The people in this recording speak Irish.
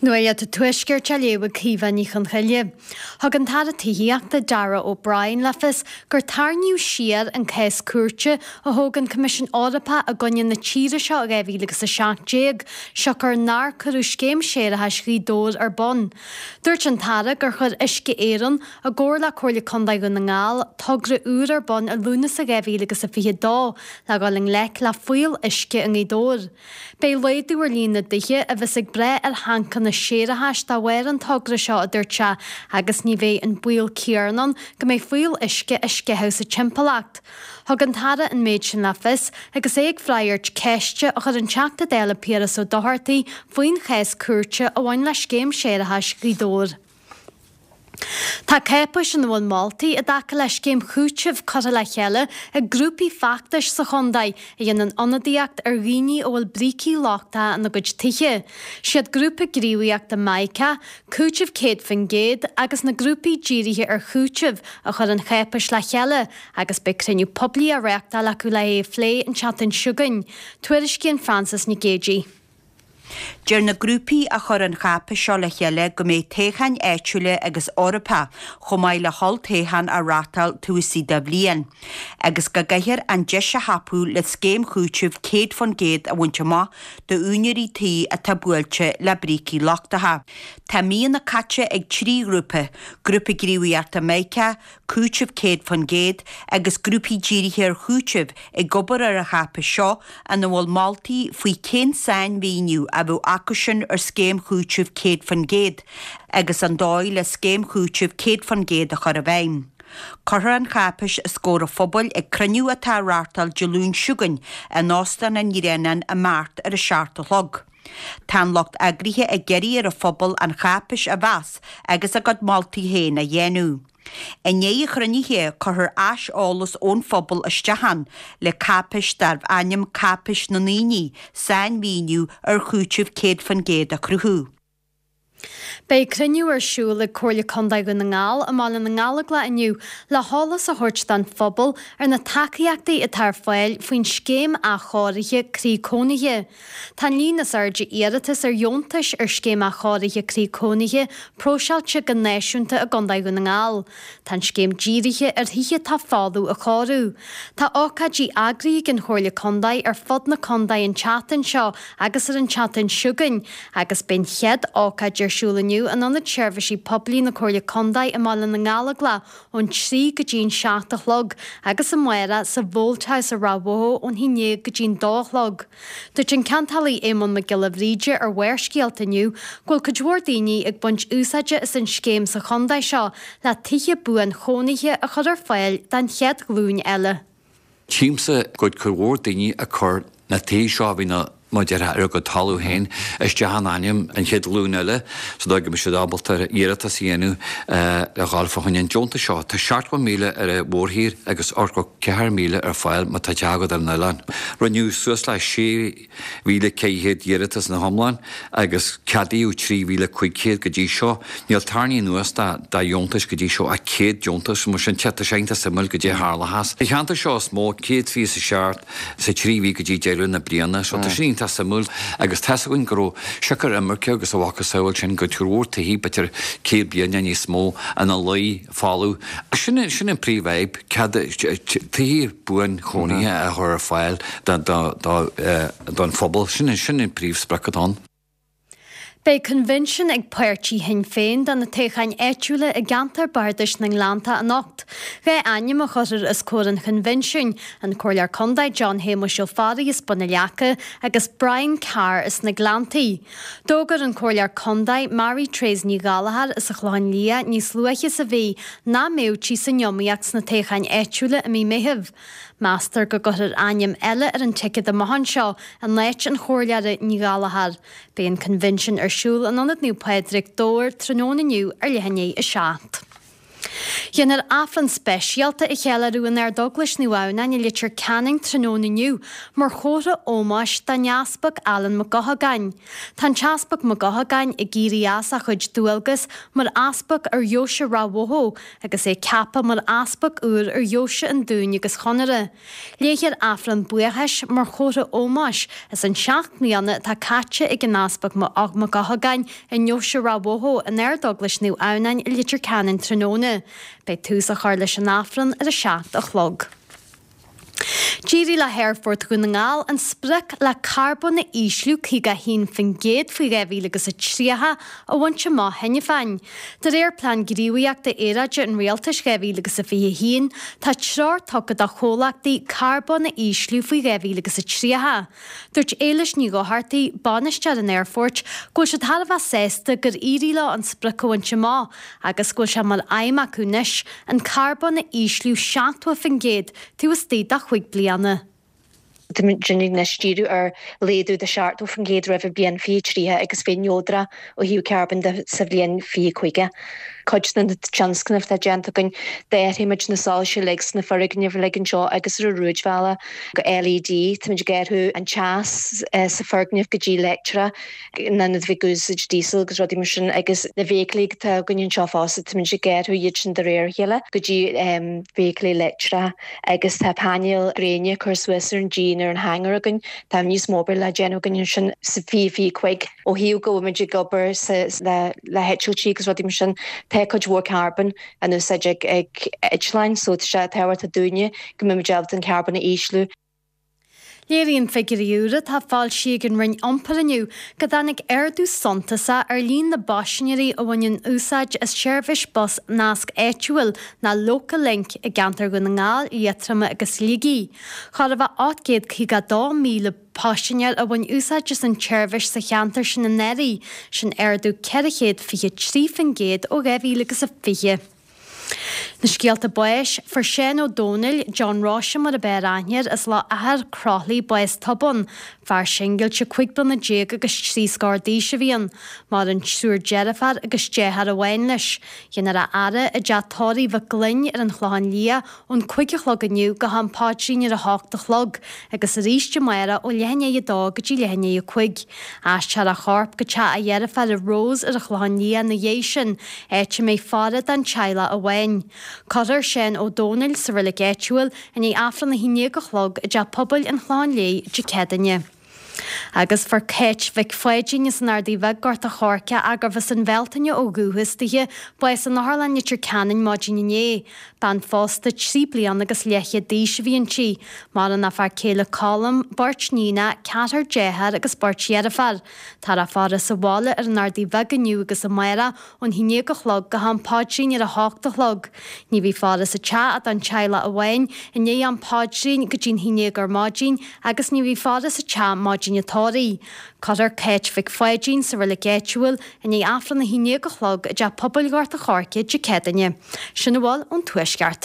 Nuacht an Tuaiscirt á léamh ag Caoimhe Ní Chonchoille. Thug an tAire Tithíochta, Darragh O'Brien le fios gur tarraingíodh siar an cás cúirte a thóg an Coimisiún Eorpach i gcoinne na tíre seo i 2017, siocair nár cuireadh scéim séarachais Ghaoth Dobhair ar bun. Dúirt an tAire gur chuir Uisce Éireann, i gcomhar le Comhairle Contae Dhún na nGall, togra úr ar bun i Lúnasa 2022 le dhul i ngleic le fuíoll uisce i nGaoth Dobhair. Beidh laghdú ar líon na dtithe a bheas ag brath ar thancanna séarachais dá bharr an togra seo, a dúirt sé, agus ní bheidh an baol céanna ann go mbeidh fuíoll uisce á sceitheadh sa timpeallacht. Thug an tAire an méid sin le fios agus é ag freagairt ceiste a chuir an Teachta Dála Piaras Ó Dochartaigh faoin chás cúirte a bhain le scéim séarachais Ghaoth Dobhair. Tá cáipéis ina bhfuil moltaí i dtaca le scéim chúitimh curtha le chéile ag grúpaí feachtais sa chontae a dhéanann ionadaíocht ar dhaoine a bhfuil brící lochtacha ina gcuid tithe. Siad grúpa gníomhaíochta Mica, Cúiteamh 100% agus na grúpaí dírithe ar chúiteamh a chuir an cháipéis le chéile agus beidh cruinniú poiblí á reáchtáil acu le é a phlé an tseachtain seo chugainn. Tuairiscíonn Frances Nic Géadaigh. Deir na grúpaí a chuir an cháipéis seo le chéile go mbeidh toghcháin áitiúla agus Eorpacha chomh maith le holltoghchán á reáchtáil taobh istigh de bhliain, agus go gcaithfear an deis a thapú le scéim chúitimh 100% a bhaint amach d'úinéirí tí atá buailte le brící lochtacha. Tá míonna caite ag 3 ghrúpa, Grúpa Gníomhaíochta Mica, Cúiteamh 100% agus grúpaí dírithe ar chúiteamh ag obair ar an cháipéis seo ina bhfuil moltaí faoi cén sainmhíniú a bheadh acusin ar scéim chúitimh 100% agus an dóigh le scéim chúitimh 100% a chur i bhfeidhm. Cuirfear an cháipéis os comhair an phobail ag cruinniú atá á reáchtáil Dé Luain seo chugainn in Óstán an Ghreanáin i mBeart ar a 7 a chlog. Tá an lucht eagraithe ag iarraidh ar an phobal an cháipéis a mheas agus a gcuid moltaí féin a dhéanamh. I ndiaidh an chruinnithe, cuirfear aiseolas ón phobal isteach ann le cáipéis darbh ainm Cáipéis na nDaoine, sainmhíniú ar chúiteamh 100% a chruthú. Beidh cruinniú ar siúl ag Comhairle Contae Dhún na nGall i mBaile na nGallóglach inniu le heolas a thabhairt don phobal ar na tacaíochtaí atá ar fáil faoin Scéim Athchóirithe Croí Cónaithe. Tá an líon is airde iarratas ar dheontais ar Scéim Athchóirithe Croí Cónaithe próiseáilte go náisiúnta i gContae Dhún na nGall. Tá an scéim dírithe ar thithe atá folamh a chóiriú. Tá ócáidí eagraithe ag an Chomhairle Contae ar fud na contae an tseachtain seo agus ar an tseachtain seo chugainn agus beidh an chéad ócáid ar siúl inniu in Ionad Seirbhísí Poiblí na Comhairle Contae i mBaile na nGallóglach ón 3 go dtí an 7 a chlog agus amárach sa Mholt House i Ráth Bhoth ón haon déag go dtí an dó a chlog. Dúirt an ceantálaí Éamonn Mac Giolla Bhríde ar Bharrscéalta inniu go bhfuil cuid mhór daoine ag baint úsáide as an scéim sa chontae seo le tithe buanchónaithe a chur ar fáil don chéad ghlúin eile. Tchímse go bhfuil cuid mhór daoine ag cur na tithe seo a bhí na, mar a déarfá, ar a gcuid talamh féin isteach in ainm an chéad ghlúin eile sa dóigh go mbeidh siad ábalta iarratas a dhéanamh le dhul fá choinne an deontais seo. Tá 70,000 ar an mhórthír agus 84,000 ar fáil má tá teach agat ar an oileán. Rinneadh suas le 6,400 iarratas ina hiomlán agus ceadaíodh 3,500 go dtí seo. Níl tarraingthe anuas de dheontais go dtí seo ach 100 deontas. Mar sin, tá sé iontach suimiúil goidé a tharlóchas. Sa cheantar seo is mó, 127 sa trí mhí go dtí deireadh na bliana. So tá sin iontach suimiúil agus tá's againn go raibh siocair imirce agus a mhacasamhail sin go cuid mhór tithe b'fhéidir 100 bliain nó níos mó ina luí folamh. Sin sin an príomhfhadhb, cead tithe buanchónaithe a chur ar fáil don phobal. Sin sin an príomhsprioc atá ann. Beidh coinbhinsiún ag páirtí Shinn Féin do na toghcháin áitiúla i gceantar Bardais na nGleannta anocht. Dhá ainm a chuirfear os comhair an choinbhinsiúin, an Comhairleoir Contae John Shéamuis Ó Fearraigh as Bun na Leaca agus Brian Carr as na Gleanntaí. D'fhógair an Comhairleoir Contae Mary Therese Ní Ghallchóir as an Chlochán Liath níos luaithe sa mhí nach mbeadh sí san iomaíocht sna toghcháin áitiúla i mí Meithimh. Meastar go gcuirfear ainm eile ar an ticéad amach anseo in áit an Chomhairleora Ní Ghallchóir. Beidh an coinbhinsiún ar siúl in Ionad Naomh Pádraig, Dobhar, tráthnóna inniu ar leath i ndiaidh 7. Déanfar Aifreann speisialta a cheiliúradh in Ardeaglais Naomh Adhamhnáin i Leitir Ceanainn tráthnóna inniu mar chomhartha ómóis don Easpag Alan Mac Eochagáin. Tá an tEaspag Mac Eochagáin ag éirí as a chuid dualgas mar Easpag ar Dheoise Ráth Bhoth agus é ceaptha mar Easpag úr ar Dheoise an Dúin agus Chonaire. Léifear Aifreann buíochais mar chomhartha ómóis as an 7 mbliana atá caite ag an Easpag Mac Eochagáin i nDeoise Ráth Bhoth in Ardeaglais Naomh Adhamhnáin i Leitir Ceanainn tráthnóna. Beidh tús á chur leis an Aifreann ar a 7 a chlog. D'éirigh le hAerfort Dhún na nGall an sprioc le carbón a ísliú 51% faoi 2030 a bhaint amach cheana féin. De réir Plean Gníomhaíochta Aeráide an Rialtais 2021, tá treoir tugtha do chomhlachtaí carbón a ísliú faoi 2030. Dúirt Éilis Ní Dhochartaigh, bainisteoir an aerfoirt, go bhfuil siad thar a bheith sásta gur éirigh leo an sprioc a bhaint amach agus go bhfuil sé mar aidhm acu anois an carbón a ísliú 70% taobh istigh de chúig bliana. Táimid anois ag díriú ar laghdú de 70% roimh an bhliain 2030 agus bheith neodrach ó thaobh carbóin de sa bhliain 2050. Cuid de na tionscnaimh atá déanta againn, d'athraigh muid na soilse uilig sna foirgnimh uilig anseo agus ar an rúidbhealach go LED. Táimid ag athrú an teas sa foirgneamh go dtí leictreach in ionad bheith ag úsáid díosal agus rudaí mar sin agus na feithiclí atá againn anseo fosta táimid ag athrú iad sin de réir a chéile go dtí feithiclí leictreacha. Agus tá painéil gréine curtha suas ar an díon ar an hangar againn. Tá níos mó obair le déanamh againn ansin sa 2025. Ó thaobh go bhfuil muid ag obair le heitiltí agus rudaí mar sin, tá cuid mhór carbón in úsáid ag eitleáin so tá sé tábhachtach dúinne go mbeidh muid ábalta an carbón a ísliú. Léiríonn figiúirí úra atá foilsithe ag an Roinn Iompair inniu go dtáinig ardú suntasach ar líon na bpaisinéirí a bhaineann úsáid as seirbhís bus Nasc Áitiúil nó Local Link i gceantar Dhún na nGall, Liatroma agus Shligigh. Chóir a bheith 852,000 paisinéir a bhain úsáid as an tseirbhís sa cheantar sin anuraidh, sin ardú 423% ó 2020. Na scéalta báis, Fuair Seán Ó Domhnaill, John Róise mar ab fhearr aithne air, as Loch Eachar, Croithlí, bás tobann. Fear singilte 15 bliana agus trí scór d'aois a bhí ann. Maireann triúr deirféar agus deartháir amháin leis. Déanfar a fhaire i dteach tórraimh Mhic Gloinn ar an Chlochán Liath ón 5 a chlog inniu go ham paidrín ar a hocht a chlog agus arís amárach ó leath i ndiaidh a dó go dtí leath i ndiaidh a cúig. Aistreofar a chorp go teach a dheirféar Rose ar an Chlochán Liath ina dhiaidh sin, áit a mbeidh faire don teaghlach amháin. Cuirfear Seán Ó Domhnaill sa reilig áitiúil i ndiaidh Aifreann a haon déag a chlog i dTeach Pobail an Chlocháin Léith Dé Céadaoine. Agus fuair Cáit Mhic Pháidín as an Ardaidh Bheag, Gort a' Choirce, gurbh as an Bhealtaine ó dhúchas dithe, bás in Otharlann Leitir Ceanainn maidin inné. Bean phósta 3 bliana agus leathchéad d'aois a bhí inti. Maireann a fear céile Colm, beirt níonacha, ceathrar dearthár agus beirt dheirféar. Táthar á faire sa bhaile ar an Ardaidh Bheag inniu agus amárach ón haon déag a chlog go ham paidrín ar a hocht a chlog. Ní bheidh faire sa teach ach don teaghlach amháin i ndiaidh am paidrín go dtí'n haon déag ar maidin agus ní bheidh faire sa teach maidin an tórraimh. Cuirfear Cáit Mhic Pháidín sa reilig áitiúil i ndiaidh Aifreann a haon déag a chlog i dTeach Pobail Ghort a' Choirce Dé Céadaoine. Sin a bhfuil ón Tuaisceart.